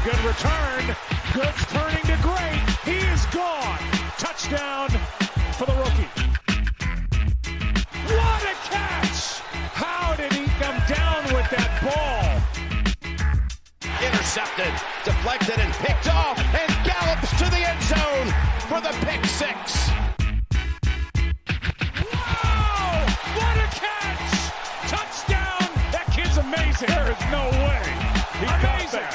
Good return. Good turning to great. He is gone. Touchdown for the rookie. What a catch! How did he come down with that ball? Intercepted, deflected, and picked off, and gallops to the end zone for the pick 6. Wow! What a catch! Touchdown! That kid's amazing. There is no way. He amazing.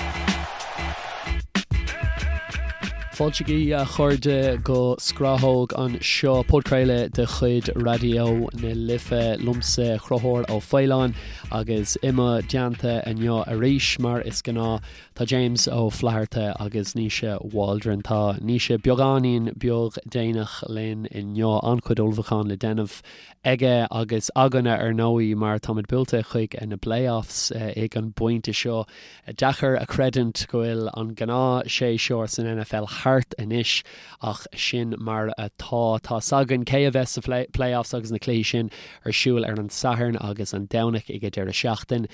Fáilte agaibh a chairde go Scrathóg anseo, podchraoladh de chuid Raidió na Life, liomsa Conchúr Ó Faoláin agus i mo dteannta inniu arís mar is gnáth tá James Ó Flatharta agus Naoise Waldron. Tá Naoise beagáinín beag déanach linn inniu, an-chuid ullmhúcháin le déanamh aige agus againne ar ndóigh mar táimid buailte chuig na playoffs ag an bpointe seo. Deacair a chreidiúint go bhfuil an gnáth-séasúr san NFL thart anois ach sin mar atá. Tá's againn cé a bheas sa playoffs agus na cluichí sin ar siúl ar an Satharn agus an Domhnach ag an deireadh seachtain.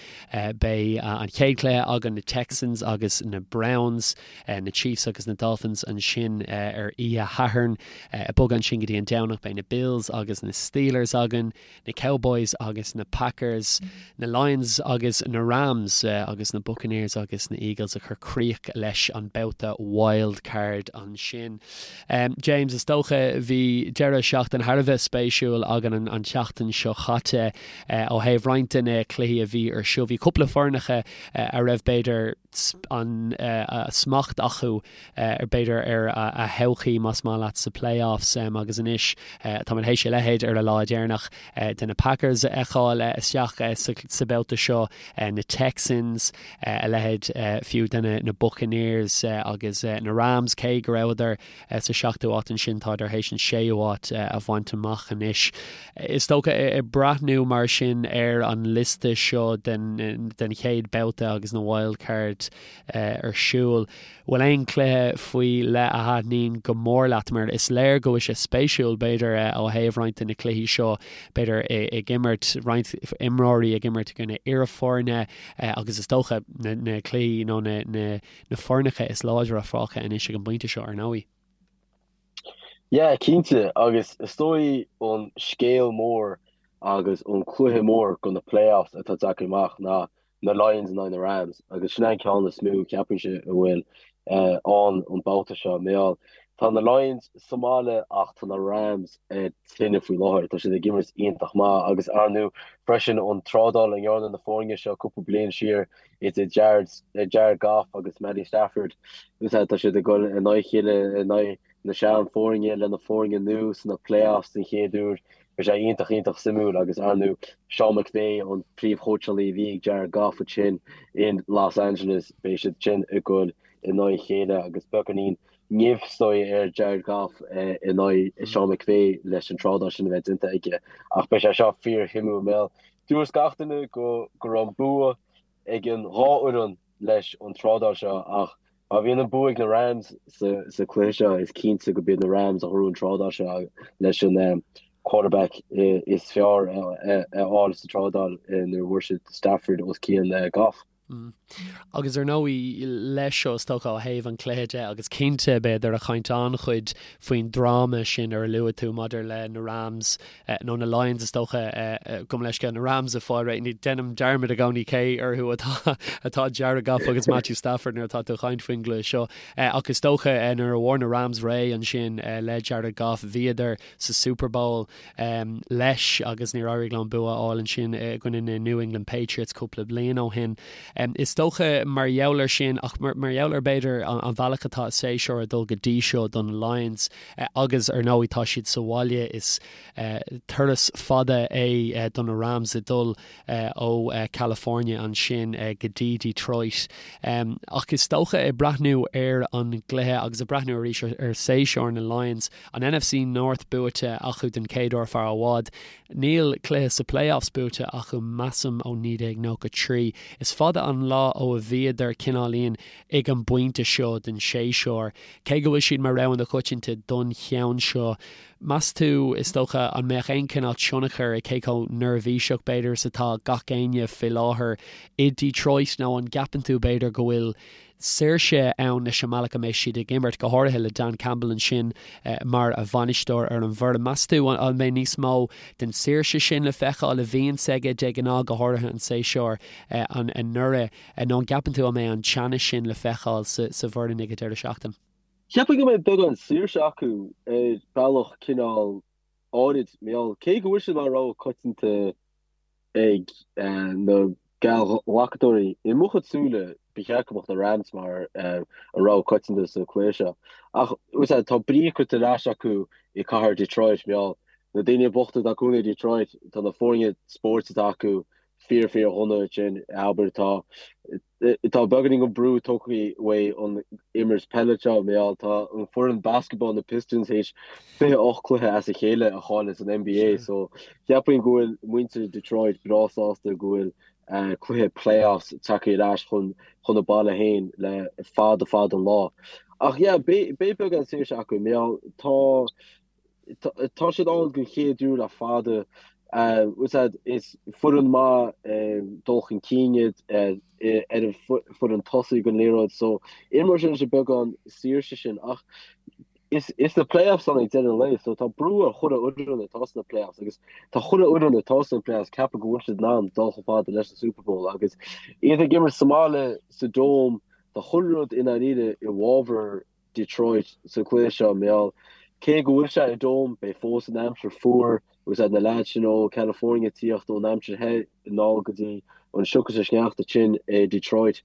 Beidh an chéad chluiche againn, na Texans agus na Browns, na Chiefs agus na Dolphins ansin ar oíche Shathairn. Ag bogadh ansin go dtí an Domhnach beidh na Bills agus na Steelers againn. na Cowboys agus na Packers, na Lions agus na Rams agus na Buccaneers agus na Eagles ag cur críoch leis an babhta wild card ansin. James, is dócha bhí deireadh seachtaine thar a bheith spéisiúil againn an tseachtain seo chaite ó thaobh roinnt de na cluichí a bhí ar siúl. Bhí cúpla foirneacha a raibh b'fhéidir an smacht acu b'fhéidir ar a thodhchaí más maith leat sa playoffs agus anois táimid théis a leithéid ar an lá deireanach de na Packers a fheiceáil isteach sa babhta seo, na Texans, a leithéid fiú de na Buccaneers agus na Rams cé go rabhadar sa seachtú áit ansin tádar théis an séú háit a bhaint amach anois. Is dócha ag breathnú mar sin ar an liosta seo den chéad babhta agus na wild card ar siúl. Bhfuil aon chluiche faoi leith a thaitníonn go mór leat mar is léir go bhfuil sé spéisiúil b'fhéidir ó thaobh roinnt de na cluichí seo b'fhéidir ag imirt roinnt imreoirí ag imirt i gcoinne iarfhoirne agus is dócha na cluichí nó na na foirneacha is láidre fágtha anois ag an bpointe seo ar ndóigh. Yeah, cinnte, agus is dóigh an scéal mór agus an cluiche mór go na playoffs atá tagtha amach ná na Lions in aghaidh na Rams agus sin é an ceann is mó ceapaimse a bhfuil ann an babhta seo. Mar gheall, tá na Lions sa mbaile ach tá na Rams ar tine faoi láthair. Tá siad ag imirt iontach maith agus ar ndóigh freisin an trádáil a ndearna na foirne seo cúpla bliain siar idir Jared, Jared Goff agus Matty Stafford. Tá siad ag dul in aghaidh a chéile in aghaidh na sean-fhoirne le na foirne nua sna playoffs den chéad uair. Bhí sé iontach, iontach suimiúil agus ar ndóigh Sean McVay, an príomhchóitseálaí a bhí ag Jared Goff ansin in Los Angeles, beidh siad sin ag dul in aghaidh a chéile agus beagáinín nimh is dóigh ar Jared Goff in aghaidh Sean McVay leis an trádáil sin a bheith déanta aige. Ach beidh sé seo fíorshuimiúil mar gheall dúirt gach duine go go raibh an bua ag an dhá fhoireann leis an trádáil seo ach má bhíonn an bua ag na Rams sa chluiche seo is cinnte go b'iad na Rams a ghnóthaigh an trádáil seo leis an quarterback is fearr a fháil sa trádáil nuair a bhfuair siad Stafford os cionn Goff. Agus ar ndóigh leis seo is dócha ó thaobh an chluiche de agus cinnte b'fhéidir ag caint an-chuid faoin dráma sin ar a luaigh tú maidir le na Rams nó na Lions is dócha, gabh mo leithscéal, na Rams ag fáil réidh. Déanaim dearmad i gcónaí cé orthu atá atá Jared Goff agus Matthew Stafford nuair atá tú ag caint faoin gcluiche seo. Ach is dócha nuair a bhfuair na Rams réidh ansin le Jared Goff, bhíodar sa Super Bowl leis agus níor éirigh leo an bua a fháil ansin i gcoinne na New England Patriots cúpla bliain ó shin. Is dócha mar gheall air sin ach mar gheall ar b'fhéidir an bhealach atá an séasúr ag dul go dtí seo do na Lions, Agus ar ndóigh tá siad sa bhaile, is turas fada é do na Rams ag dul ó California ansin go dtí Detroit. Ach is dócha ag breathnú ar an gcluiche agus ag breathnú arís ar séasúr na Lions, an NFC North buaite acu den chéad uair fear i bhfad. Níl cluiche sa playoffs buaite acu measaim ó 1993. Is fada an lá ó a bhíodar cineáilín ag an bpointe seo den séasúr. Cé go bhfuil siad mar rogha na coitianta don cheann seo, Meas tú, is dócha, an mbeadh aon chineál tionchar ag cé chomh neirbhíseach, b'fhéidir, is atá gach éinne faoi láthair i Detroit nó an gceapann tú, b'fhéidir, go bhfuil saoirse ann leis an mbealach a mbeidh siad ag imirt, go háirithe le Dan Campbell ansin mar bhainisteoir ar an bhfoireann. Meas tú an mbeidh níos mó den saoirse sin le feiceáil a bhíonns aige de ghnáth, go háirithe an séasúr anuraidh, nó an gceapann tú an mbeidh an teannas sin le feiceáil sa bhfoireann ag an deireadh seachtaine? Cheapfainn go mbeidh beagán saoirse acu ar bhealach cineál áirid, mar gheall, cé go bhfuil siad mar rogha coitianta ag na geallghlacadóirí, i mo chuid súile, ba cheart go mbeadh na Rams mar an rogha coitianta sa chluiche seo. Ach, tá brí curtha ar ais acu i cathair Detroit, mar gheall, na daoine bochta atá cónaí i Detroit, tá na foirne spóirt atá acu fíor fíor dhona ansin, abair, tá Tá beagáinín den brú tógtha uaidh an imirt peile seo, mar gheall tá an foireann basketball na Pistons théis 28 cluiche as a chéile a chailleadh san NBA so cheapfainn go bhfuil muintir Detroit breá sásta go bhfuil cluiche playoffs tagtha ar ais chun chun a baile féin le fada fada an lá. Ach yeah beidh beagán saoirse acu mar gheall tá Tá siad ann den chéad uair le fada. Is foireann maith dul chun cinn iad ar an foireann tosaigh den liathróid so imreoidh siad leis an beagán saoirse sin ach is na playoffs ann ag deireadh an lae so tá brú ar chuile fhoireann atá sna playoffs agus tá chuile fhoireann atá sna playoffs ceapadh go bhfuil siad in ann dul chomh fada leis an Super Bowl agus iad ag imirt sa mbaile sa Dome tá chuile rud i ndáiríre i bhfabhar Detroit sa chluiche seo, mar gheall cé go bhfuil sé i Dome, beidh fós an aimsir fuar agus na leaids sin ó California ag tíocht ón aimsir the anall go dtí an sioc is an sneachta tinn i Detroit.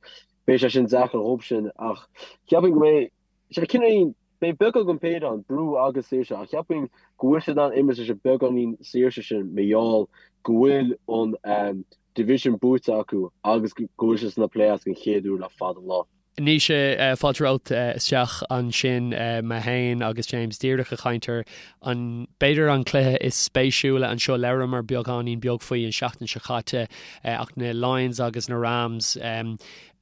Beidh sé sin deacair dhóibh sin ach cheapfainn go mbeidh sé cineál, beidh beagán den péire ann, brú agus saoirse, ach cheapfainn go bhfuil siad in ann imirt leis an beagáinín saoirse sin mar gheall go bhfuil an division buaite acu agus go bhfuil siad sna playoffs den chéad uair le fada an lá. Naoise, fáilte romhat isteach ansin. Mé féin agus James díreach ag caint ar an, b'fhéidir an cluiche is spéisiúla anseo. Labhramar beagáinín beag faoi an seachtain seo caite ach na Lions agus na Rams,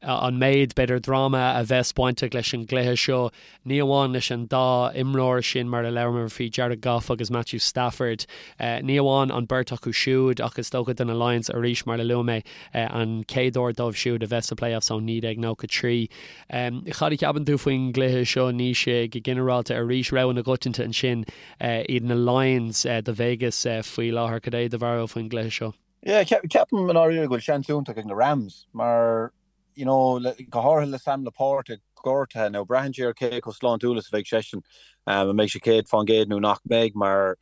an méid, b'fhéidir, dráma a bheas bainteach leis an gcluiche seo. Ní amháin leis an dá imreoir sin mar a labhramar faoi, Jared Goff agus Matthew Stafford. Ní amháin an beirt acu siúd ach is dócha do na Lions arís mar a luaigh mé, an chéad uair dóibh siúd a bheith sa playoffs ó 1993. Cad a cheapann tú faoin gcluiche seo, Naoise, go ginearálta arís, rogha na gcoitianta ansin iad na Lions do Vegas faoi láthair. Cad é do bharúil faoin gcluiche seo? Yeah, ceapaim i ndáiríre go bhfuil seans iontach ag na Rams mar you know, go háirithe le Sam LaPorta gortaithe, now braitheann sé ar cé chomh sláintiúil is a bheidh seisean, an mbeidh sé 100% nó nach mbeidh, mar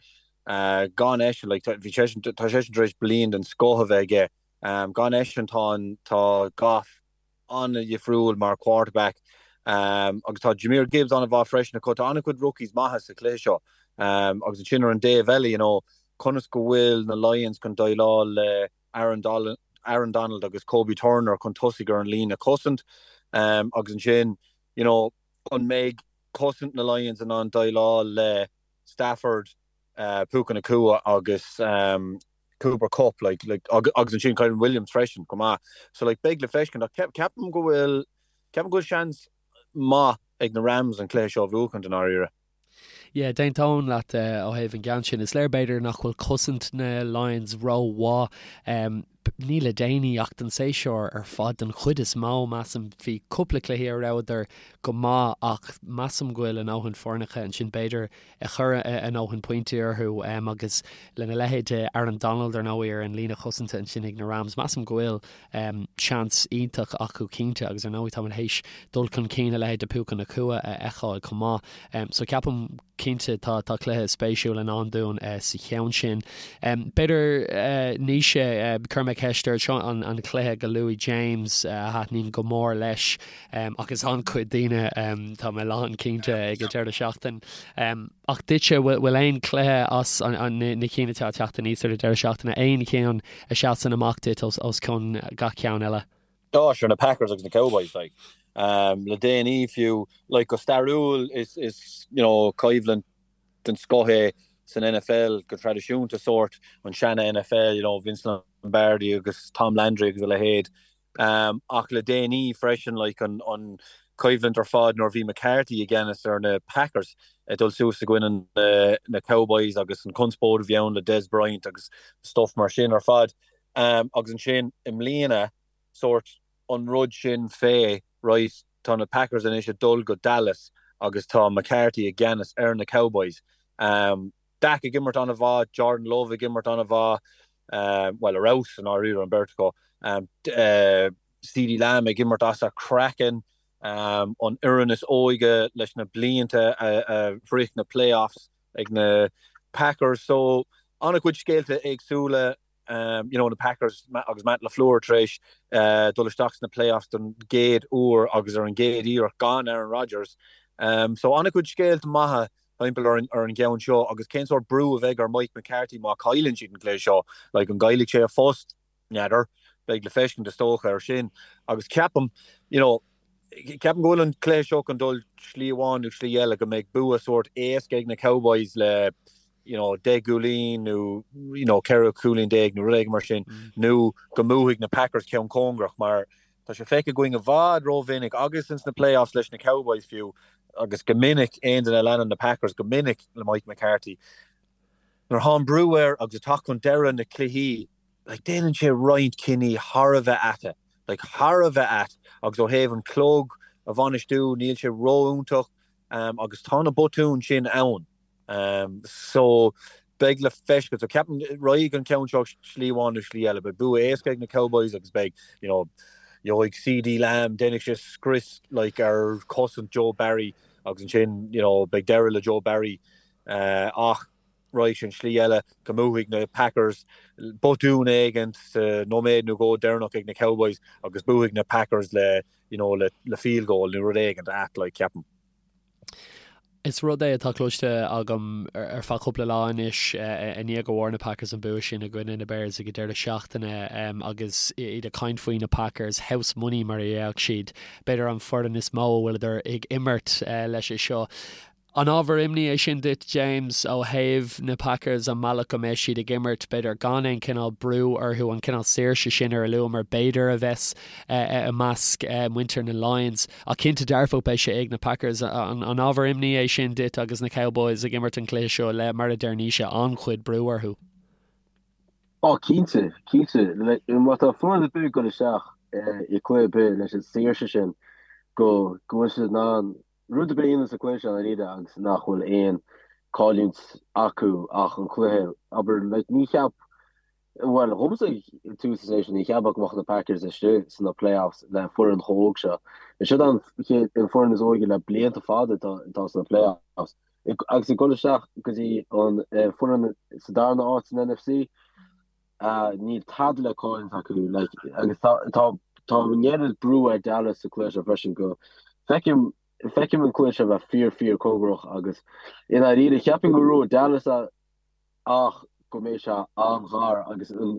gan eisean, like, bhí seisean, tá seisean tar éis bliain den scoth a bheith aige, gan eisean tá an, tá Goff an-dhifriúil mar quarterback, agus tá Jahmyr Gibbs an-mhaith freisin acu, tá an-chuid rookies maithe sa chluiche seo, agus ansin ar an dtaobh eile, you know, conas go bhfuil na Lions chun déileáil le Aaron Aaron Donald agus Kobie Turner chun tosaigh ar an líne cosaint agus ansin you know an mbeidh cosaint na Lions in ann déileáil le Stafford, Puka Nacua agus Cooper Kupp like like agus ansin Kyren Williams freisin chomh maith. So like beidh le feiscint ach ceapaim go bhfuil ceapaim go bhfuil seans maith ag na Rams an cluiche seo a bhuachaint i ndáiríre. Yeah, d'aontóinn leat ó thaobh an gceann sin. Is léir b'fhéidir nach bhfuil cosaint na Lions rómhaith. Ní le déanaí ach don séasúr ar fad den chuid is mó, measaim. Bhí cúpla cluichí a rabhadar go maith ach measaim go bhfuil a ndóthain foirneacha ansin b'fhéidir a chuir a ndóthain pointí orthu agus lena leithéid de Aaron Donald ar ndóigh ar an líne chosanta ansin ag na Rams, measaim go bhfuil seans iontach acu cinnte agus ar ndóigh táimid théis dul chun cinn a leithéid de Puka Nacua a fheiceáil chomh maith. So ceapaim cinnte tá tá cluiche spéisiúil i ndán dúinn sa cheann sin. B'fhéidir Naoise, cuirfidh mé ceist ort, seo an an cluiche go luaigh James a thaitníonn go mór leis agus an-chuid daoine tá mé lán cinnte ag an deireadh seachtain. Ach duitse, bhfuil aon chluiche as na cinn atá ag teacht aníos ar an deireadh seachtaine, aon cheann a sheasann amach duit os cionn gach ceann eile? Á, sure, na Packers agus na Cowboys, like. Le déanaí fiú, like, go stairiúil is, is, you know, coimhlint den scoth é san NFL go traidisiúnta, sórt, an seana-NFL, you know, Vince Lombardi agus Tom Landry agus a leithéid. Ach le déanaí freisin, like, an, an. coimhlint ar fad nuair a bhí McCarthy i gceannas ar na Packers ag dul suas i gcoinne na Cowboys agus an conspóid a bhí ann le Dez Bryant agus stuff mar sin ar fad. Agus ansin i mbliana sórt an rud sin fé, right, tá na Packers anois ag dul go Dallas agus tá McCarthy i gceannas ar na Cowboys. Dak ag imirt an-mhaith, Jordan Love ag imirt an-mhaith, bhuel, ar fheabhas i ndáiríre an bheirt acu. CeeDee Lamb ag imirt as a chraiceann, an fhoireann is óige leis na blianta a shroich na playoffs ag na Packers. So, an-chuid scéalta éagsúla, you know, na Packers agus Matt LaFleur tar éis dul isteach sna playoffs don gcéad uair agus ar an gcéad iarracht gan Aaron Rodgers. So, an-chuid scéalta maithe timpeall ar an gceann seo agus cén sórt brú a bheidh ar Mike McCarthy má chailleann siad an cluiche seo? Like, an gcaillfidh sé a phost? N'fheadar. Beidh le feiscint is dócha ar sin. Agus ceapaim, you know, ceapaim go bhfuil an cluiche seo chun dul slí amháin nó slí eile, go mbeidh bua sórt éasca ag na Cowboys le, you know, 10 gcúilín nó, you know, 14 cúilín nó rud éigin mar sin, nó go mbuafaidh na Packers ceann cóngarach mar tá sé feicthe againn i bhfad rómhinic agus ins na playoffs leis na Cowboys fiú agus go minic aon duine a leanann na Packers go minic le Mike McCarthy nuair atá an brú air agus ag teacht chun deireadh na cluichí like déanann sé roinnt cinní thar a bheith ait, like thar a bheith ait agus ó thaobh an clog a bhainistiú níl sé ró-iontach um, agus tá na botúin sin ann. Um, so beidh le feiscint. So ceapaim raghaidh an ceann seo slí amháin nó slí eile. Beidh bua éasca ag na Cowboys agus beidh, you know, gheobhaidh CeeDee Lamb, déanfaidh sé scrios like ar chosaint Joe Barry agus ansin, you know, beidh deireadh le Joe Barry uh, ach raghaidh sé an slí eile go mbuafaidh na Packers botún éigin sa nóiméad nó dhó deireanach ag na Cowboys agus buafaidh na Packers le, you know, le, le field goal nó rud éigin ait like ceapaim. Is rud é atá cloiste agam ar feadh cúpla lá anois i ndiaidh go bhfuair na Packers an bua sin i gcoinne na Bears ag an deireadh seachtaine agus iad ag caint faoi na Packers, house money mar a déarfadh siad, b'fhéidir an foireann is mó a bhfuileadar ag imirt leis seo. An ábhar imní é sin duit, James, ó thaobh na Packers, an mbealach go mbeidh siad ag imirt, b'fhéidir gan aon chineál brú orthu, an cineál saoirse sin ar a luamar, b'fhéidir, a bheas i measc muintir na Lions? Ach cinnte dearfach beidh sé ag na Packers. An ábhar imní é sin duit agus na Cowboys ag imirt an chluiche seo le, mar a deir Naoise, an-chuid brú orthu? Ó, cinnte, cinnte. Má tá foireann ar bith ag dul isteach i gcluiche ar bith leis an saoirse sin go bhfuil siad in ann rud ar bith a dhéanamh sa chluiche seo i ndáiríre agus nach bhfuil aon cailliúint acu ach an cluiche, abair, like, ní cheap, bhuel, dhomsa ag tús an séasúir, ní cheapfá go mbeadh na Packers istigh sna playoffs le foireann chomh óg seo. Is siad an chéad, an foireann is óige le blianta fada atá, atá sna playoffs. Agus ag dul isteach go dtí an foireann sa darna áit san NFC, Níl tada le cailliúint acu like agus tá tá tá an oiread brú ar Dallas sa cluiche seo freisin go feicim feicim an cluiche seo bheith fíor fíor cóngarach agus i ndáiríre cheapfainn go ngnóthóidh Dallas é ach go mbeidh sé an-ghar agus an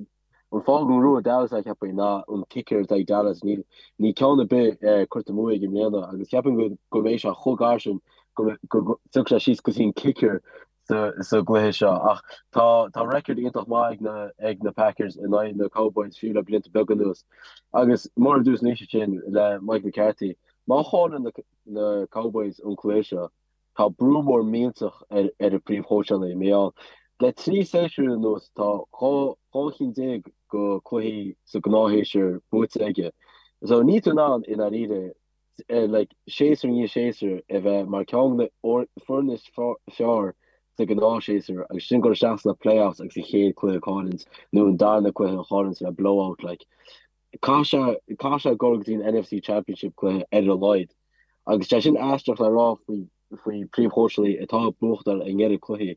an fáth go ngnóthóidh Dallas é cheapfainn ná an kicker atá ag Dallas níl níl ceann ar bith eh, curtha amú aige i mbliana agus cheapfainn go go mbeidh sé chomh gar sin go go go dtiocfaidh sé síos go dtí an kicker sa gcluiche seo ach tá tá record iontach maith ag na ag na Packers in aghaidh na Cowboys fiú le blianta beaga anuas. Agus mar a dúirt Naoise ansin le Mike McCarthy, má chailleann na na Cowboys an cluiche seo, tá brú mór millteach ar ar an príomhchóitseálaí mar gheall le 3 séasúr anuas tá 12 12 chinn de cluichí sa gnáthshéasúr buaite aige. So níl tú in ann i ndáiríre like, séasúr i ndiaidh séasúir a bheith mar ceann de na foirne is fearr sa ghnáthshéasúr agus sin dul isteach sna playoffs agus an chéad cluiche a chailliúint nó an darna cluiche a chailliúint le blowout like. Caithfidh sé caithfidh sé dul go dtí an NFC Championship cluiche ar a laghad agus sé sin aisteach le rá faoi faoi príomhchóitseálaí atá ag buachtáil an oiread cluichí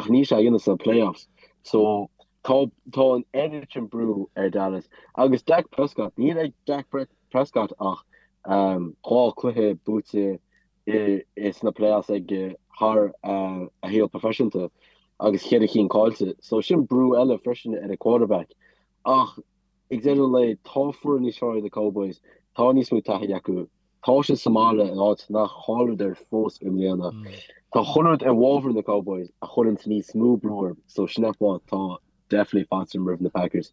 ach níl sé á dhéanamh sna playoffs so tá tá an oiread sin brú ar Dallas agus Dak Prescott níl ag Dak Prescott ach 2 cluiche buaite i sna playoffs aige thar a shaol proifisiúnta agus cheithre chinn caillte so sin brú eile freisin ar an quarterback ach ag deireadh an lae tá foireann níos fearr ag na Cowboys tá níos mó taithí acu Tá siad sa mbaile in áit nach chailleadar fós i mbliana. Tá chuile rud i bhfabhar na Cowboys a chuireanns níos mó brú orthu so sin an fáth tá definitely faitíos orm roimh na Packers.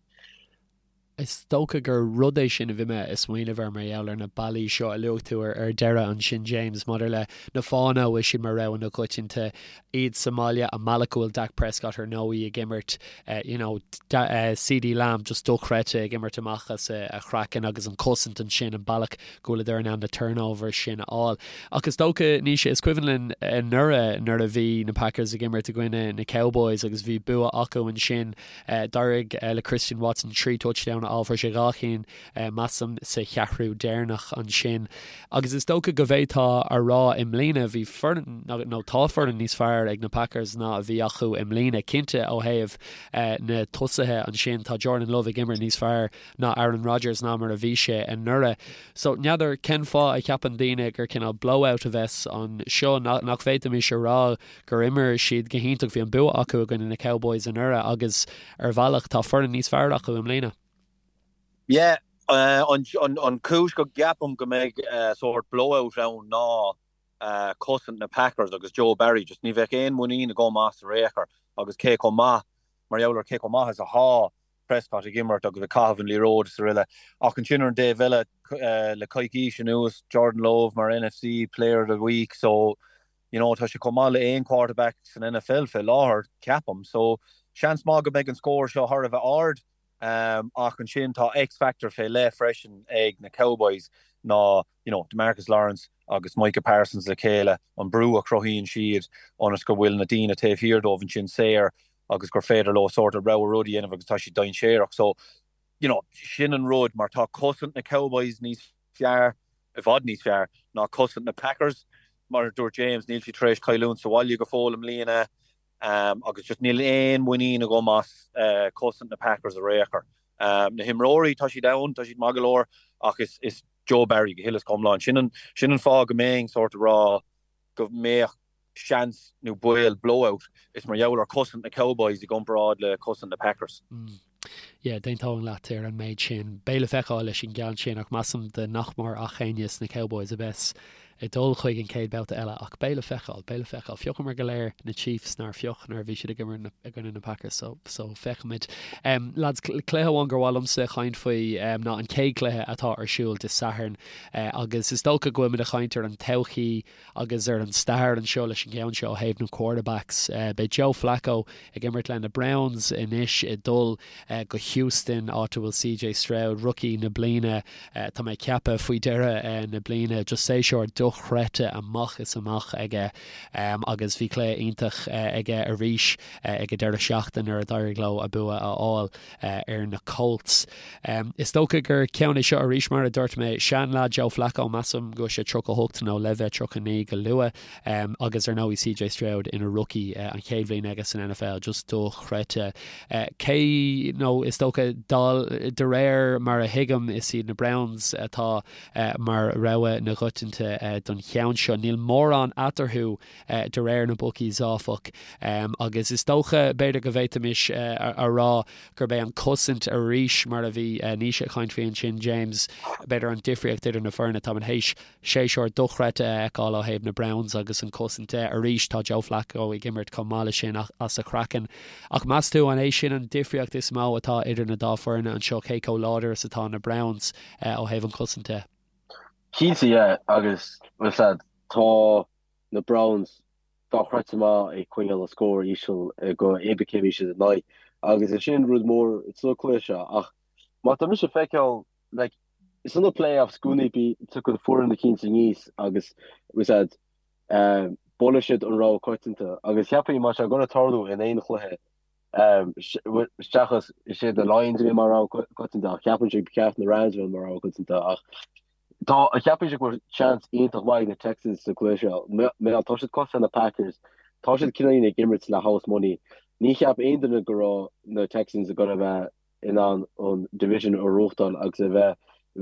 Is dócha gur rud é sin a bhí mé ag smaoineamh air mar gheall ar na bealaí seo a luaigh tú ar deireadh ansin James, maidir le na fáthanna a bhfuil siad mar rogha na coitianta, iad sa mbaile, an bealach go bhfuil Dak Prescott ar ndóigh ag imirt, you know, CeeDee Lamb just dochreidte ag imirt amach as a chraiceann agus an cosaint ansin, an bealach go bhfuileadar in ann na turnovers sin a fháil. Ach is dócha, Naoise, is cuimhin linn anuraidh nuair a bhí na Packers ag imirt i gcoinne na Cowboys agus bhí bua acu ansin, D'éirigh le Christian Watson 3 touchdown a fháil, fuair sé 2 chinn, measaim, sa cheathrú deireanach ansin. Agus is dócha go bhféadfá a rá i mbliana, bhí foireann, nó tá foireann níos fearr ag na Packers ná a bhí acu i mbliana. Cinnte ó thaobh na tosaithe ansin, tá Jordan Love ag imirt níos fearr ná Aaron Rodgers ná mar a bhí sé anuraidh. So, n'fheadar cén fáth a cheapann daoine gur cineál blowout a bheas anseo, nach bhféadfaimis a rá gur imir siad go hiontach, bhí an bua acu i gcoinne na Cowboys anuraidh agus ar bhealach tá foireann níos fearr acu i mbliana. Yeah, an chúis go gceapaim go mbeidh sórt blowout ann ná cosaint na Packers agus Joe Barry, just ní bheadh aon mhuinín agam as ar aon chor agus cé chomh maith, mar gheall ar cé chomh maith is athá Prescott ag imirt agus ag caitheamh an liathróid is araile. Ach ansin ar an dtaobh eile, le coicís anuas, Jordan Love mar NFC Player of the Week, so You know, tá sé chomh maith le aon quarterback san NFL fé láthair, ceapaim. So, seans maith go mbeidh an scór seo thar a bheith ard. Ach ansin tá X-factor fé leith freisin ag na Cowboys ná, you know, DeMarcus Lawrence agus Micah Parsons le chéile, an brú a chruthaíonn siad ionas go bhfuil na daoine taobh thiar dóibh ansin saor agus gur féidir leo sórt a rogha rud a dhéanamh agus tá siad dainséarach. So, you know, sin an rud mar tá cosaint na Cowboys níos fearr, i bhfad níos fearr, ná cosaint na Packers. Mar a dúirt James, níl siad tar éis cailliúint sa bhaile go fóill i mbliana agus just níl aon mhuinín agam as cosaint na Packers ar aon chor. Na himreoirí, tá siad ann, tá siad maith go leor ach is Joe Barry go huile is go hiomlán. Sin an sin an fáth go mbeinn sórt ag rá go mbeadh seans nó baol blowout, is mar gheall ar cosaint na Cowboys i gcomparáid le cosaint na Packers. Yeah, d'aontóinn leat ar an méid sin. Beidh le feiceáil leis an gceann sin ach measaim de nach mór ach éinne sna Cowboys a bheas ag dul chuig an chéad babhta eile ach beidh le feiceáil, beidh le feiceáil. Phiocamar go léir na Chiefs nár phioc nuair a bhí siad ag imirt i gcoinne na Packers so, so feicfimid. Um, lads, cluiche amháin gur mhaith liomsa caint faoi um, ná an chéad chluiche atá ar siúl Dé Sathairn uh, agus is dócha go bhfuil muid ag caint ar an todhchaí Agus ar an stair anseo leis an gceann seo ó thaobh na quarterbacks, beidh Joe Flacco ag imirt le na Browns anois ag dul go Houston, áit a bhfuil CJ Stroud, rookie na bliana, tá mé ag ceapadh, faoi dheireadh na bliana. Just séasúr dochreidte amach is amach aige agus bhí cluiche iontach aige arís ag an deireadh seachtaine nuair a d'éirigh leo a bua a fháil. ar na Colts. Is dócha gur ceann é seo arís, mar a dúirt mé, seanleaid Joe Flacco, measaim go bhfuil sé 38 nó le bheith 39 go luath, agus ar ndóigh CJ Stroud ina rookie, an chéad bhliain aige san NFL, just dochreidte. Cé, nó is dócha, de réir mar a thuigim, is iad na Browns atá mar rogha na gcoitianta don cheann seo. Níl mórán eatarthu de réir na bookies, áfach, agus is dócha, b'fhéidir go bhféadfaimis a rá gurb é an cosaint arís, mar a bhí Naoise ag caint faoi ansin, James, b'fhéidir an difríocht idir na foirne. Táimid théis séasúr dochreidte a fheiceáil ó thaobh na Browns agus an cosaint de. Arís, tá Joe Flacco ag imirt chomh maith leis sin as a chraiceann. Ach meas tú an é sin an difríocht is mó atá idir na dá foirne anseo, cé chomh láidir is atá na Browns ó thaobh an chosaint de? Cinnte, yeah, agus, bhuel, tá na Browns dochreidte maith ag coinneáil an scór íseal go cibé cé a bhí siad in aghaidh agus is sin rud mór sa cluiche seo ach má tá mise ag feiceáil like sna playoffs i gcónaí bí tugann foireann eicínt aníos agus was that buaileann siad an rogha coitianta agus cheapfainn má tá sé ag goil tarlú in aon chluiche seachas is iad na Lions a bhí mar rogha coitianta ach cheapfainnse ba cheart na Rams a bheith mar rogha coitianta ach Tá, cheapfainnse go bhfuil seans iontach maith ag na Texans sa gcluiche seo. Mar tá siad cosúil na Packers, tá siad cineáilín ag imirt le house money. Ní cheap aon duine go raibh na Texans ag goil a bheith in ann an division a ghnóthachtáil agus a bheith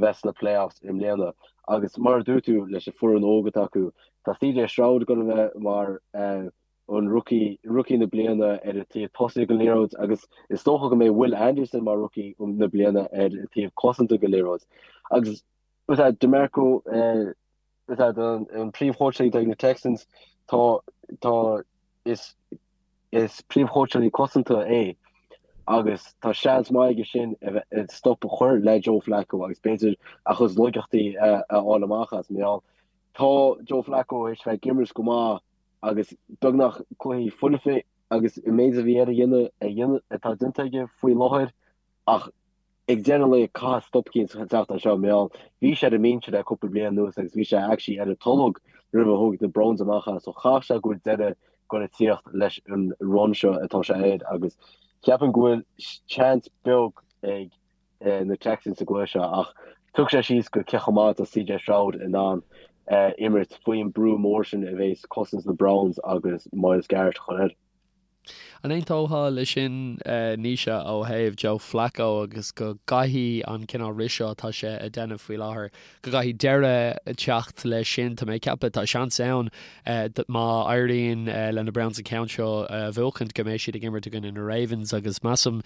bheith sna playoffs i mbliana. Agus mar a dúirt tú leis an foireann óg atá acu, tá CJ Stroud ag goil a bheith mar an rookie, rookie na bliana ar an taobh tosaigh den liathróid agus is dócha go mbeidh Will Anderson mar rookie na bliana ar an taobh cosanta den liathróid. Agus DeMeco, an príomhchóitseálaí atá ag na Texans, tá, tá, is, is príomhchóitseálaí cosanta é. Agus tá seans maith aige sin a bheith stop a chur le Joe Flacco agus b'fhéidir a chuid laigeachtaí a fháil amach as. Mar gheall, tá Joe Flacco théis bheith ag imirt go maith agus beagnach cluichí foirfe agus an méid a bhí air a dhéanamh a dhéanamh atá déanta aige faoi láthair ach ag deireadh an lae caithfidh stop eicínt teacht anseo mar gheall bhí sé ar an mbinse le cúpla bliain anuas agus bhí sé actually ar an tolg roimh a thóg na Browns amach as so chaithfeadh sé go bhfuil deireadh ag dul a tíocht leis an run seo atá sé air agus ceapaim go bhfuil seans beag ag na Texans sa gcluiche seo ach tiocfaidh sé síos go cé chomh maith atá CJ Stroud in ann imirt faoin brú mór sin a bhéas cosaint na Browns agus Myles Garrett a chur air. An aontófá leis sin, Naoise, ó thaobh Joe Flacco agus go gcaithfidh an cineál rith seo atá sé a déanamh faoi láthair, go gcaithfidh deireadh teacht leis sin? Tá mé ag ceapadh, tá seans ann má éiríonn le na Browns an ceann seo a bhuachaint go mbeidh siad ag imirt i gcoinne na Ravens agus measaim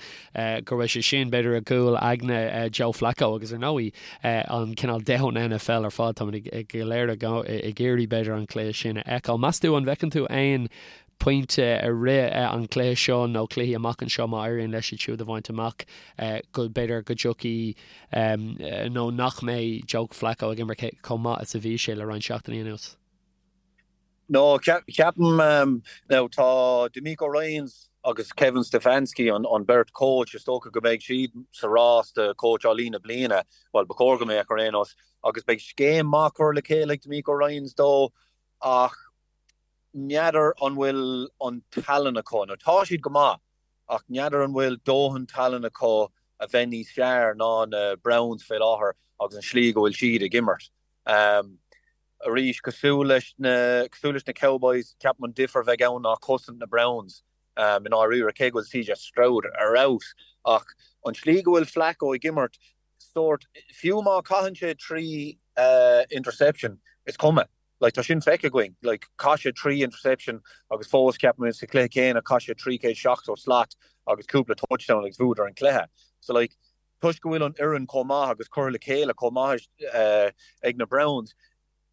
go raibh sé sin b'fhéidir i gcúl aigne Joe Flacco agus ar ndóigh an cineál domhan NFL ar fad, táimid go léir ag iarraidh b'fhéidir an cluiche sin a fheiceáil. Meas tú an bhfeiceann tú aon pointe i rith an chluiche seo nó cluichí amach anseo má éiríonn leis iad siúd a bhaint amach go b'fhéidir go dtiocfaidh nó nach mbeidh Joe Flacco ag imirt chomh maith is a bhí sé le roinnt seachtainí anuas. No, ceapaim now tá DeMeco Ryans agus Kevin Stefanski an beirt coach is dócha go mbeidh siad sa rás do cóitseálaí na bliana, bhuel ba chóir go mbeadh ar aon nós, agus beidh scéim maith curtha le chéile ag DeMeco Ryans dó ach n'fheadar an bhfuil an tallann acu, nó tá siad go maith, ach n'fheadar an bhfuil dóthain tallann acu a bheith níos fearr ná na Browns fé láthair agus an slí go bhfuil siad ag imirt. Arís, cosúil leis na, cosúil leis na Cowboys, ceapaim an difear a bheidh ann ná cosaint na Browns i ndáiríre, cé go bhfuil CJ Stroud ar fheabhas, ach an tslí go bhfuil Flacco ag imirt, sórt, fiú má chaitheann sé 3 interception, is cuma. Like, tá sin feicthe againn. Like, chaith sé 3 interception agus fós, ceapaim, sa chluiche céanna, chaith sé 370 slat agus cúpla touchdown agus bhuadar an cluiche. So, like, toisc go bhfuil an fhoireann chomh maith agus curtha le chéile chomh maith ag na Browns,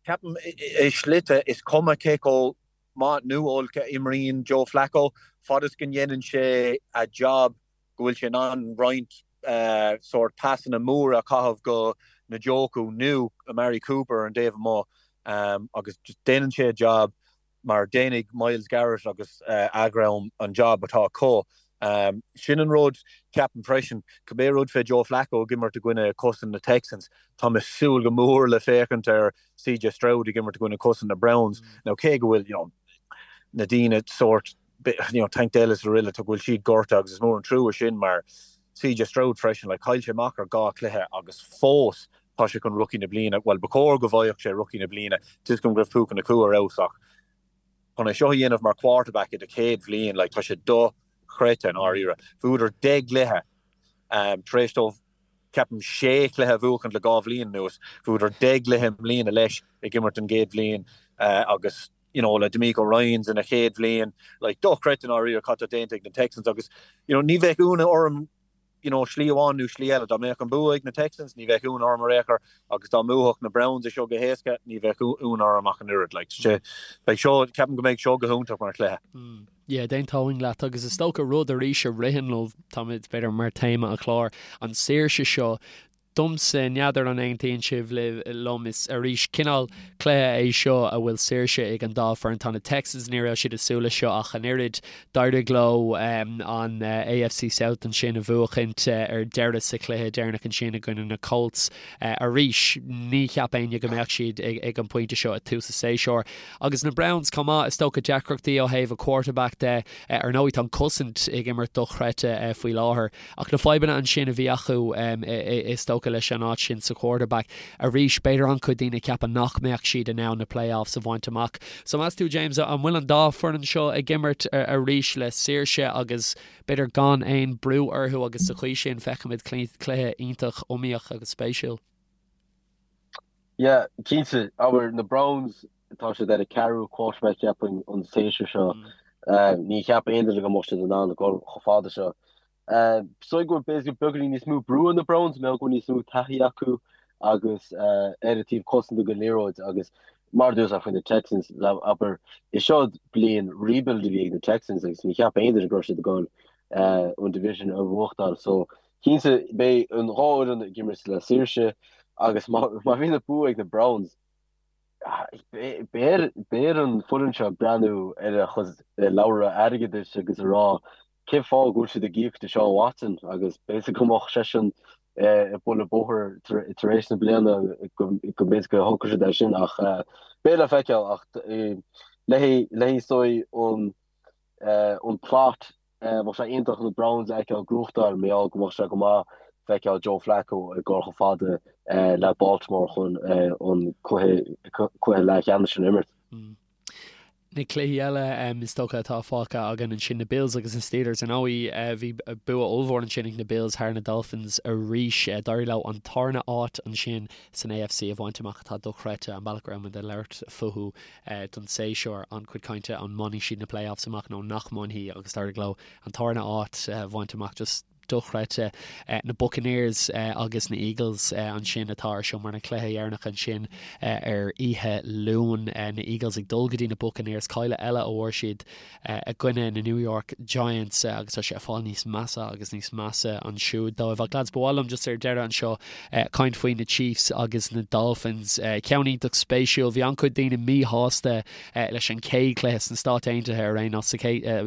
ceapaim i slite is cuma cé chomh maith nó olc a imríonn Joe Flacco, fad is go ndéanann sé a job go bhfuil sé in ann roinnt sórt pasanna móra a chaitheamh go Njoku nó Amari Cooper ar an dtaobh amuigh agus just déanann sé a job mar déanfaidh Myles Garrett agus a dhream an job atá acu. Sin an rud, ceapaim freisin, cibé rud fé Joe Flacco ag imirt i gcoinne cosaint na Texans, tá mé ag súil go mór le féachaint ar CJ Stroud ag imirt i gcoinne cosaint na Browns. Now cé go bhfuil, you know, na daoine sórt you know, Tank Dell is araile, tá go bhfuil siad gortaithe agus is mór an trua sin mar CJ Stroud freisin, like, chaill sé amach ar dhá chluiche agus fós tá sé chun rookie na bliana, bhuel, ba chóir go bhfaigheadh sé rookie na bliana, tá a fhios agam go raibh Puka Nacua ar fheabhas ach chun é seo a dhéanamh mar quarterback i do chéad bhliain, like, tá sé dochreidte i ndáiríre. Bhuadar 10 gcluiche um, tar éis dóibh ceapaim sé chluiche a bhuachaint le dhá bhliain anuas, bhuadar 10 gcluiche i mbliana leis ag imirt an gcéad bhliain uh, agus you know, le DeMeco Ryans ina chéad bhliain, like, dochreidte i ndáiríre cad tá déanta ag na Texans agus, you know, ní bheadh ionadh orm, you know, slí amháin nó slí eile, dá mbeadh an bua ag na Texans, ní bheadh ionadh orm ar aon chor agus dá mbuafadh na Browns é seo go héasca, ní bheadh ionadh orm ach an oiread, like, sé, beidh seo, ceapaim go mbeidh seo go hiontach mar chluiche. Mm. Yeah, d'aontóinn leat agus is dócha rud arís a ritheann liom, táimid b'fhéidir mar téama an chláir, an saoirse seo Domsa, n'fheadar an aontaíonn sibh liom, is arís cineál cluiche é seo a bhfuil saoirse ag an dá foireann. Tá na Texans, ní raibh siad ag súil leis seo ach an oiread. D'éirigh leo an AFC South ansin a bhuachaint ar deireadh sa chluiche deireanach ansin i gcoinne na Colts. Arís, ní cheap éinne go mbeadh siad ag an bpointe seo ag tús an tséasúir. Agus na Browns chomh maith, is dócha deacrachtaí ó thaobh a quarterback de. Ar ndóigh, tá an cosaint ag imirt dochreidte faoi láthair. Ach na fadhbanna ansin a bhí acu, is dócha, leis an áit sin sa quarterback, arís, b'fhéidir an-chuid daoine ag ceapadh nach mbeadh siad in ann na playoffs a bhaint amach. So meas tú, James, an bhfuil an dá foireann seo ag imirt arís le saoirse agus b'fhéidir gan aon brú orthu agus sa chaoi sin feicfimid cluiche iontach iomaíoch agus spéisiúil? Yeah, cinnte. Abair, na Browns, tá siad ar a ceathrú quarterback ceapaim an séasúr seo. Ní cheap aon duine go mbeadh siad in ann a dhul chomh fada seo. So go bhfuil beagáinín níos mó brú ar na Browns, mar go bhfuil níos mó taithí acu agus ar an taobh cosanta den liathróid agus mar a dúirt faoi na Texans, abair, is seo bliain rebuild a bhí ag na Texans agus ní cheap aon duine go raibh siad ag dul. an division a bhuachtáil. So cinnte beidh an dhá fhoireann ag imirt le saoirse agus má bhíonn an bua ag na Browns, beidh ar an foireann seo breathnú ar a chuid leabhra airgeadais agus a rá cén fáth go bhfuil siad ag íoc Deshaun Watson agus b'fhéidir go mbeadh seisean ag bualadh bóthair tar éis na bliana go mb'fhéidir go thógfadh siad é sin ach beidh le feiceáil ach le haghaidh is dóigh an plot bheadh sé iontach na Browns a fheiceáil ag gnóthachtáil mar gheall go mbeadh sé go maith feiceáil Joe Flacco ag dul chomh fada le Baltimore chun an cluiche leathcheannais sin a imirt. Na cluichí eile is dócha atá fágtha againn ansin, na Bills agus na Steelers. Ar ndóigh, bhí bua ollmhór ansin ag na Bills thar na Dolphins arís. D'éirigh leo an tarna áit ansin san AFC a bhaint amach atá dochreidte, an bealach go raibh muid ag labhairt fúthu don séasúr, an-chuid cainte an mbainfidh siad na playoffs amach nó nach mbainfidh agus d'éirigh leo an tarna áit a bhaint amach. Just dochreidte. Na Buccaneers agus na Eagles ansin atá ar siúl mar na cluiche dheireanach ansin ar oíche Luain. Na Eagles ag dul go dtí na Buccaneers, cailleadh eile a fuair siad i gcoinne na New York Giants agus tá sé ag fáil níos measa agus níos measa ansiúd dóibh. Ach lads, ba mhaith liom just ar deireadh anseo caint faoi na Chiefs agus na Dolphins. Ceann iontach spéisiúil. Bhí an-chuid daoine míshásta leis an chéad chluiche sna Stáit Aontaithe ar aon nós,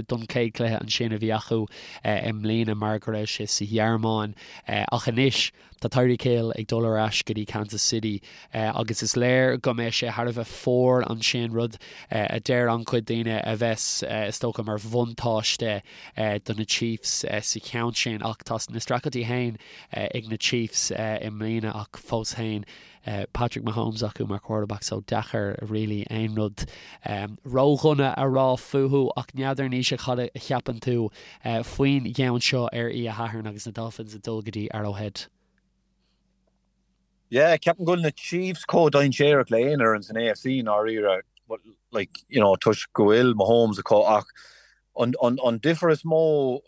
don chéad chluiche ansin a bhí acu i mbliana mar go raibh sé sa Ghearmáin. Ach anois tá Tyreek Hill ag dul ar ais go dtí Kansas City agus is léir go mbeidh sé thar a bheith fuar ansin, rud a deir an-chuid daoine a bheas is dócha mar bhuntáiste do na Chiefs sa cheann sin. Ach tá na streachailtí féin ag na Chiefs i mbliana ach fós féin Patrick Mahomes acu mar quarterback so deacair really aon rud ródhona a rá fúthu ach n'fheadar Naoise cad a cheapann tú faoin gceann seo ar oíche Shathairn agus na Dolphins ag dul go dtí Arrowhead. Yeah, ceapaim go bhfuil na Chiefs chomh dainséarach le aon fhoireann san AFC i ndáiríre, like, you know, toisc go bhfuil Mahomes acu ach an, an, an difear is mó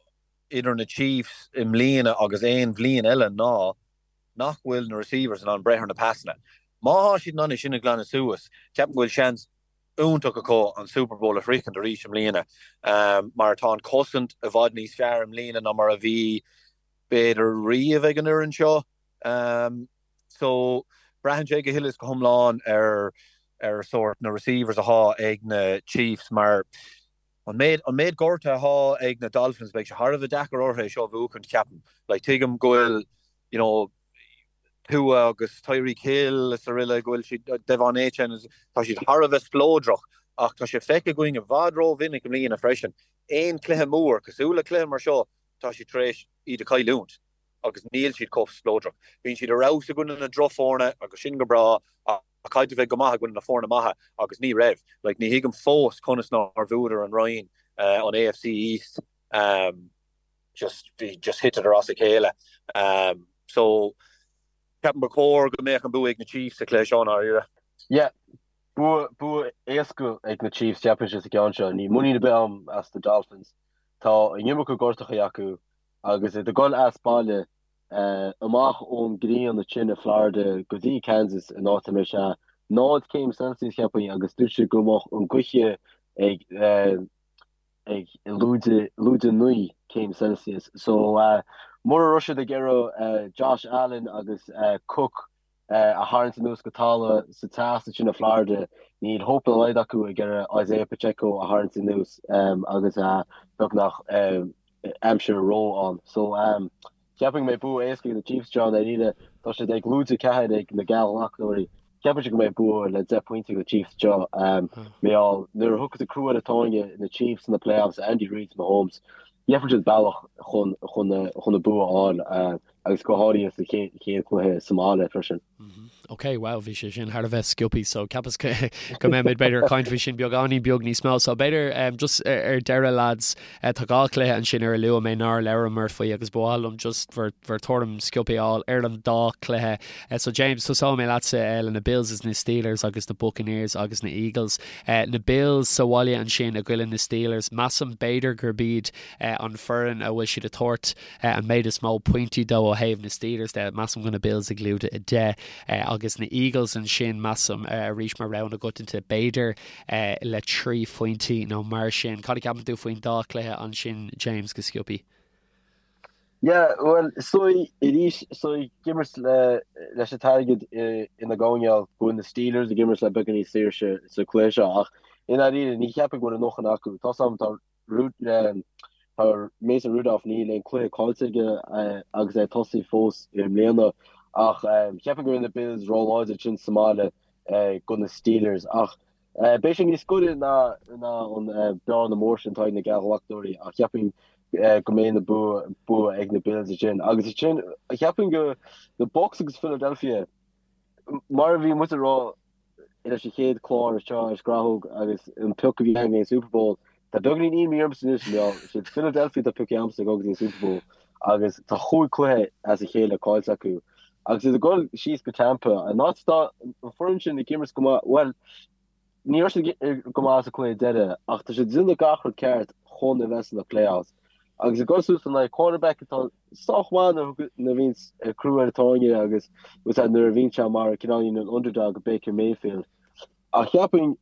idir na Chiefs i mbliana agus aon bhliain eile ná nach bhfuil na receivers in ann breith ar na pasanna. Má thá siad in ann é sin a ghlanadh suas, ceapaim go bhfuil seans iontach acu an Super Bowl a shroichint arís i mbliana mar tá an chosaint i bhfad níos fearr i mbliana ná mar a bhí b'fhéidir riamh ag an fhoireann seo. So braitheann sé go huile is go hiomlán ar ar sórt na receivers athá ag na Chiefs mar An méid, an méid gortuithe athá ag na Dolphins, beidh sé thar a bheith deacair orthu é seo a bhuachaint, ceapaim. Like, tuigim go bhfuil, you know, Tua agus Tyreek Hill is araile, go bhfuil siad, De'Von Achane, tá siad thar a bheith spleodrach, ach tá sé feicthe againn i bhfad ró-mhinic i mbliana freisin, aon chluiche mór, cosúil le cluiche mar seo, tá siad tar éis iad a chailliúint agus níl siad chomh spleodrach. Bíonn siad ar fheabhas i gcoinne na drochfhoirne agus sin go breá ach caithfidh tú bheith go maith i gcoinne na foirne maithe agus ní raibh. Like, ní thuigim fós conas nár bhuadar an roinn, an AFC East. Just, bhí, just thiteadar as a chéile. So, ceapaim ba chóir go mbeadh an bua ag na Chiefs sa chluiche seo, i ndáiríre. Yeah, bua, bua éasca ag na Chiefs, ceapaimse sa gceann seo. Níl muinín ar bith agam as na Dolphins. Tá an iomarca gortachaí acu agus iad ag dul as baile. amach ón ngrian ansin i Florida go dtí Kansas in áit a mbeidh sé 0 céim Celsius cheapfainn agus dúirt siad go mbeadh an gaoth ag ag lúide lúide 9 céim Celsius so mura raibh siad ag iarraidh Josh Allen agus Cook a tharraingt anuas go talamh sa teas ansin i Florida níl hope dá laghad acu ag iarraidh Isaiah Pacheco a tharraingt anuas agus beagnach aimsir ró ann. So ceapaim go mbeidh bua éasca ag na Chiefs anseo i ndáiríre. Tá siad ag lúide 4 ag na geallghlacadóirí. Ceapaimse go mbeidh bua le 10 pointe ag na Chiefs anseo. Mar gheall nuair a thiocfas an crú ar an tairne na Chiefs sna playoffs, Andy Reid, Mahomes, gheobhaidh siad bealach chun chun chun an bua a fháil agus go háirithe sa chéad chluiche sa mbaile freisin. Ok, wow, bhí sé sin thar a bheith sciobtha so ceapas go mbeimid b'fhéidir ag caint faoi sin beagáinín beag níos mó. So b'fhéidir um, just ar deireadh lads, uh, tá dhá chluiche ansin ar a luaigh mé nár labhramar faoi agus ba mhaith liom just bhur, bhur tuairim sciobtha a fháil ar an dá chluiche. Uh, so James, tosóidh mé leatsa uh, le na Bills is na Steelers agus na Buccaneers agus na Eagles. Uh, na Bills sa bhaile ansin i gcoinne na Steelers, measaim b'fhéidir gurb iad uh, an foireann a bhfuil siad ag tabhairt an méid is mó pointí dó ó thaobh na Steelers de. Measaim go na Bills ag lúide 10 agus na Eagles ansin, measaim, arís mar rogha na gcoitianta, b'fhéidir le 3 phointí nó mar sin. Cad a cheapann tú faoin dá chluiche ansin, James, go sciobtha? Yeah, bhuel, is dóigh arís, is dóigh ag imirt leis an t-airgead ina gcoinneáil go bhfuil na Steelers ag imirt le beagán níos saoirse sa chluiche seo ach i ndáiríre ní cheapfainn go bhfuil a ndóthain acu. Tá 's agam tá tá Mason Rudolph níl aon cluiche caillte aige agus é ag tosaí fós i mbliana ach cheapfainn go bhfuil na Bills róláidir ansin sa mbaile do na Steelers ach Beidh sé níos gaire ná an bearna mór sin atá ag na geallghlacadóirí ach cheapfainn go mbeidh na bua ag na Bills ansin. Agus ansin cheapfainn go na Bucs agus Philadelphia mar a bhí muid ag rá leis an chéad chlár seo ar Scrathóg agus an pioc a bhí againn an Super Bowl tá beagáinín imní ormsa anois mar is iad Philadelphia atá pioctha agamsa ag dul go dtí an Super Bowl agus tá chúig cluiche as a chéile caillte acu. Agus iad ag dul síos go Tampa, an áit atá an foireann sin ag imirt go maith, bhuel, ní raibh siad go maith sa cluiche deiridh, ach tá siad ag déanamh gach rud ceart chun a bheith sna playoffs. Agus ag dul suas in aghaidh quarterback atá sách maith nuair a bhíonn crú ar an tairne agus nuair a bhíonn sé mar cineáilín an underdog Baker Mayfield. Ach cheapfainn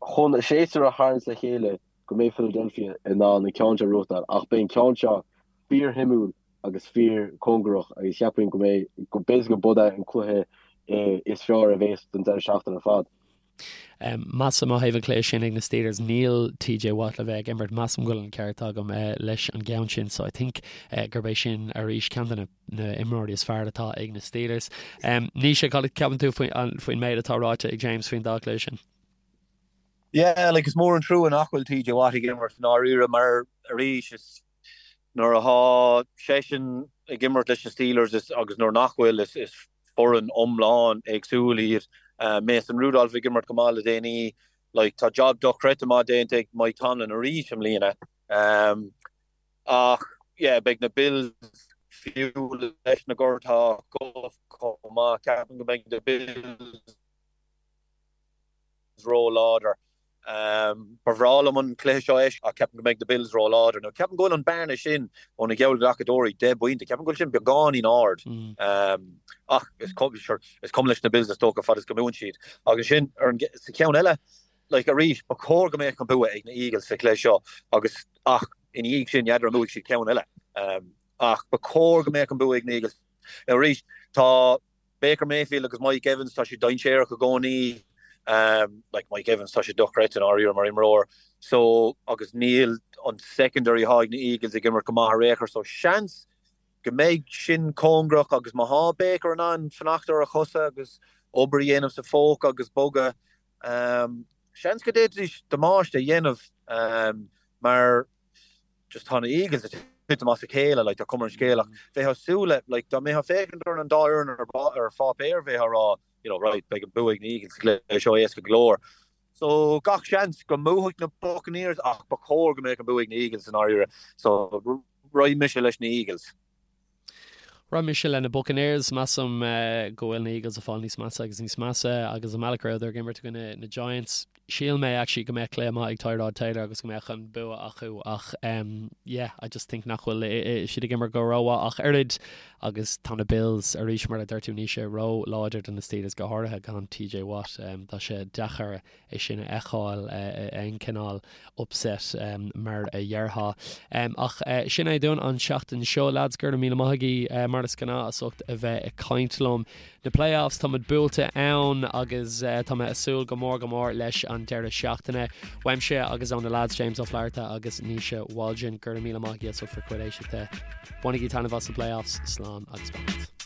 chun a séasúr a tharraingt le chéile go mbeidh Philadelphia in ann an ceann seo a bhuachtáil ach beidh an ceann seo fíorshuimiúil agus fíor cóngarach agus cheapfainn go mbeidh, go b'fhéidir go b'é an cluiche is fearr a bhéas don deireadh seachtaine ar fad. Measaim ó thaobh an chluiche sin ag na Steelers, níl TJ Watt le bheith ag imirt, measaim go bhfuil an ceart agam leis an gceann sin so I think gurb é sin arís ceann de na na imreoirí is fearr atá ag na Steelers. Naoise, cad a ceapann tú faoin méid atá ráite ag James faoin dá chluiche sin? Yeah, like is mór an trua nach bhfuil TJ Watt ag imirt i ndáiríre mar arís is Nuair atá seisean ag imirt leis na Steelers agus nuair nach bhfuil, is foireann iomlán éagsúil iad. Mason Rudolph ag imirt go maith le déanaí. Like, tá job dochreidte maith déanta ag Mike Tomlin arís i mbliana. Ach, yeah, beidh na Bills fiú leis na gortuithe acu chomh maith. Ceapaim go mbeidh na Bills. ró-láidir. Ba bhreá liom an cluiche seo a fheiscint ach ceapaim go mbeidh na Bills ró-láidir. Now ceapaim go bhfuil an bearna sin ó na geallghlacadóirí, 10 bpointe, ceapaim go bhfuil sin beagáinín ard. Ach is cuma leis na Bills is dócha fad is go mbuann siad. Agus sin ar an sa cheann eile, like arís, ba chóir go mbeadh an bua ag na Eagles sa chluiche seo agus ach ina dhiaidh sin, n'fheadar an mbuafaidh siad ceann eile. Ach ba chóir go mbeadh an bua ag na Eagles. Now arís, tá Baker Mayfield agus Mike Evans, tá siad dainséarach i gcónaí. Like Mike Evans, tá sé dochreidte i ndáiríre mar imreoir. So, agus níl an secondary atá ag na Eagles ag imirt go maith ar aon chor. So, seans go mbeidh sin cóngarach agus má thá Baker in ann fanacht ar a chosa agus obair a dhéanamh sa phóca agus bogadh, seans go d'fhéadfaidís damáiste a dhéanamh mar just tá na Eagles ag titim as a chéile, like, tá cuma ar an scéal ach bheifeá ag súil le, like, dá mbeifeá ag féachaint ar an dá fhoireann ar, ar pháipéar bheifeá ag rá, you know, right, beidh an bua ag na Eagles sa chluiche seo éasca go leor. So gach seans go mbuafaidh na Buccaneers ach ba chóir go mbeadh an bua ag na Eagles i ndáiríre. So raghaidh mise leis na Eagles. Raghaidh mise le na Buccaneers. Measaim go bhfuil na Eagles ag fáil níos measa agus níos measa agus an bealach a rabhadar ag imirt i gcoinne na Giants. Shíl mé actually go mbeadh cluiche maith ag Tyrod Taylor agus go mbeadh an bua acu ach yeah, I just think nach bhfuil siad ag imirt go rómhaith ach oiread agus tá na Bills arís mar a dúirt tú Naoise ró-láidir do na Steelers go háirithe gan TJ Watt. Tá sé deacair é sin a fheiceáil aon cineál upset mar a dhéarfá. Ach sin é dúinn an tseachtain seo, lads. Go raibh míle maith agaibh mar is gnáth as ucht a bheith ag caint liom. Na playoffs, tá muid buailte ann agus tá mé ag súil go mór go mór leis an deireadh seachtaine. Uaimse agus ó na lads James Ó Flatharta agus Naoise Waldron, go raibh míle maith agaibh as ucht bhur gcuid éisteachta. Bainigí taitneamh as na playoffs. Slán agus beannacht.